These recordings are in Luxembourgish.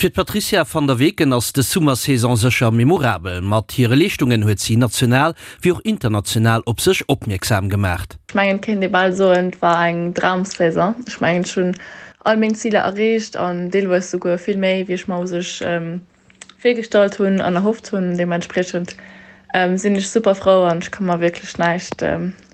Fir d'Patrizia van der Weken ass dës Summersaison sécher memorabel. Mat hire Leeschtungen huet si national wéi och international op sech opmierksam gemaacht. Ech mengen et kéint ee bal soen, et war eng Dramsaison. Ech mengen ech hunn all meng Ziler erreecht an deelweis souguer vill méi wéi ech mer u sech virgestallt hunn an erhofft hunn. Deementspriechend sinn ech super frou an ech ka mer wierklech näischt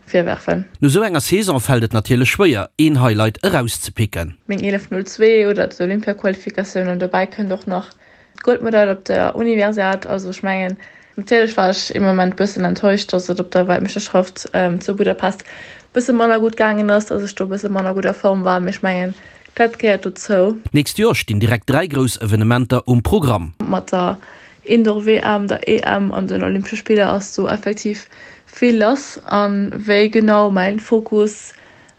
virwerfen. No sou enger Saison fält et natierlech schwéier, een Highlight erauszepicken. Meng 11.02 oder d'Olympiaqualifikatioun an dobäi kënnt och nach d'Goldmedail op der Universiad. Also ech mengen, natierlech war ech ee Moment bëssen enttäuscht, dass et op der Weltmeeschterschaft zu Budapest bësse manner gutt gaangen ass, dass ech do bësse manner gutt a Form war, mee ech mengen, Dat gehéiert dozou. D'nächst Joer stinn direkt 3 grouss Evenementer um Programm. Mat der Indoor-WM, der EM an den Olympesche Spiller ass do effektiv vill lass. A wéi genau mäin Fokus,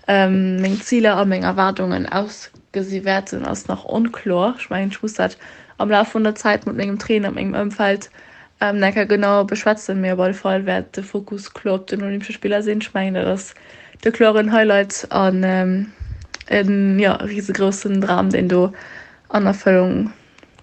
meng Ziler a meng Erwaardungen ausgesi wäerten, ass nach onkloer. Ech mengen, ech muss dat am Laf vun der Zäit mat mengem Trainer, mengem Ëmfeld Enker genau beschwätzen, mee op alle Fall wäert de Fokus kloer op den Olympesche Spiller sinn. Ech mengen, dat ass de kloren Highlight an en jo risegroussen Dram, deen do an Erfëllung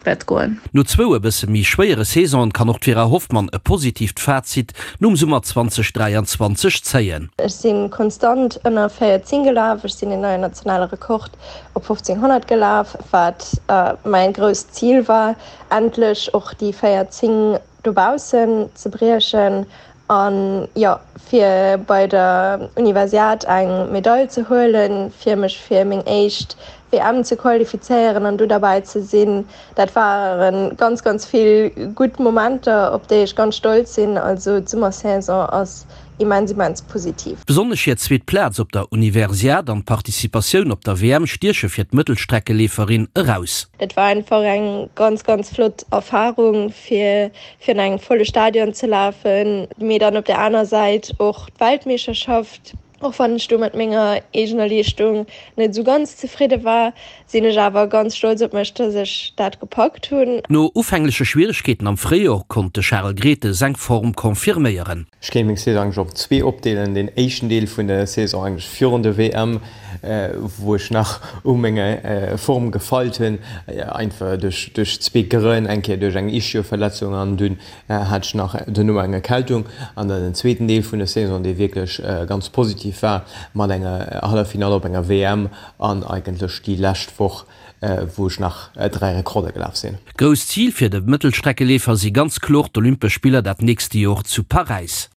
wäert goen. No zwou e bësse méi schwéiere Saisonen kann och d'Vera Hoffmann e positiivt Fazit nom Summer 2023 zéien. Ech si konstant ënner 14 gelaf, ech sinn en neien nationale Rekord op 1500 gelaf, wat mäin grousst Zil war. Endlech och déi 14 dobaussen ze briechen an jo fir bei der Universiad eng Medail ze huelen, fir mech fir meng éischt WM ze qualifizéieren an do derbäi ze sinn, dat waren ganz ganz vill gutt Momenter op déi ech ganz stolz sinn. Also d'Summersaison ass Immens, immens positiv. Besonnesch hir zweet Plaz op der Universiad an d'Participatioun op der WM stieche fir d'Mëttelstreckeleeferin eraus. Et war einfach eng ganz, ganz flott Erfarung fir virun engem volle Stadion ze lafen, mee dann op der aner Säit och d'Weltmeeschterschaft. Och wann ech do mat menger eegener Leeschtung net esou ganz zefridde war, sinn ech awer ganz stolz op mech, dass ech dat gepackt hunn. No ufängleche Schwieregkeeten am Fréijor konnt de Charel Grethe seng Form confirméieren. Ech kéint meng Saison eigentlech op zwee opdeelen. Deen éischten Deel vun der Saison eigentlech virun der WM, wou ech nach u menger Form gefeilt hunn, einfach duerch duerch zwee Grënn, eng Kéier duerch eng Ischioverletzung an dunn hat ech nach duerno eng Erkältung. An dann den zweeten Deel vun der Saison, dee wierklech ganz positiv war, mat enger Halleffinall op enger WM an eigentlech déi lescht Woch, wou ech nach 3 Rekorder gelaf sinn. Grousst Zil fir de Mëttelstreckeleefer si ganz kloer d'Olympesch Spiller dat nächste Jor zu Paräis.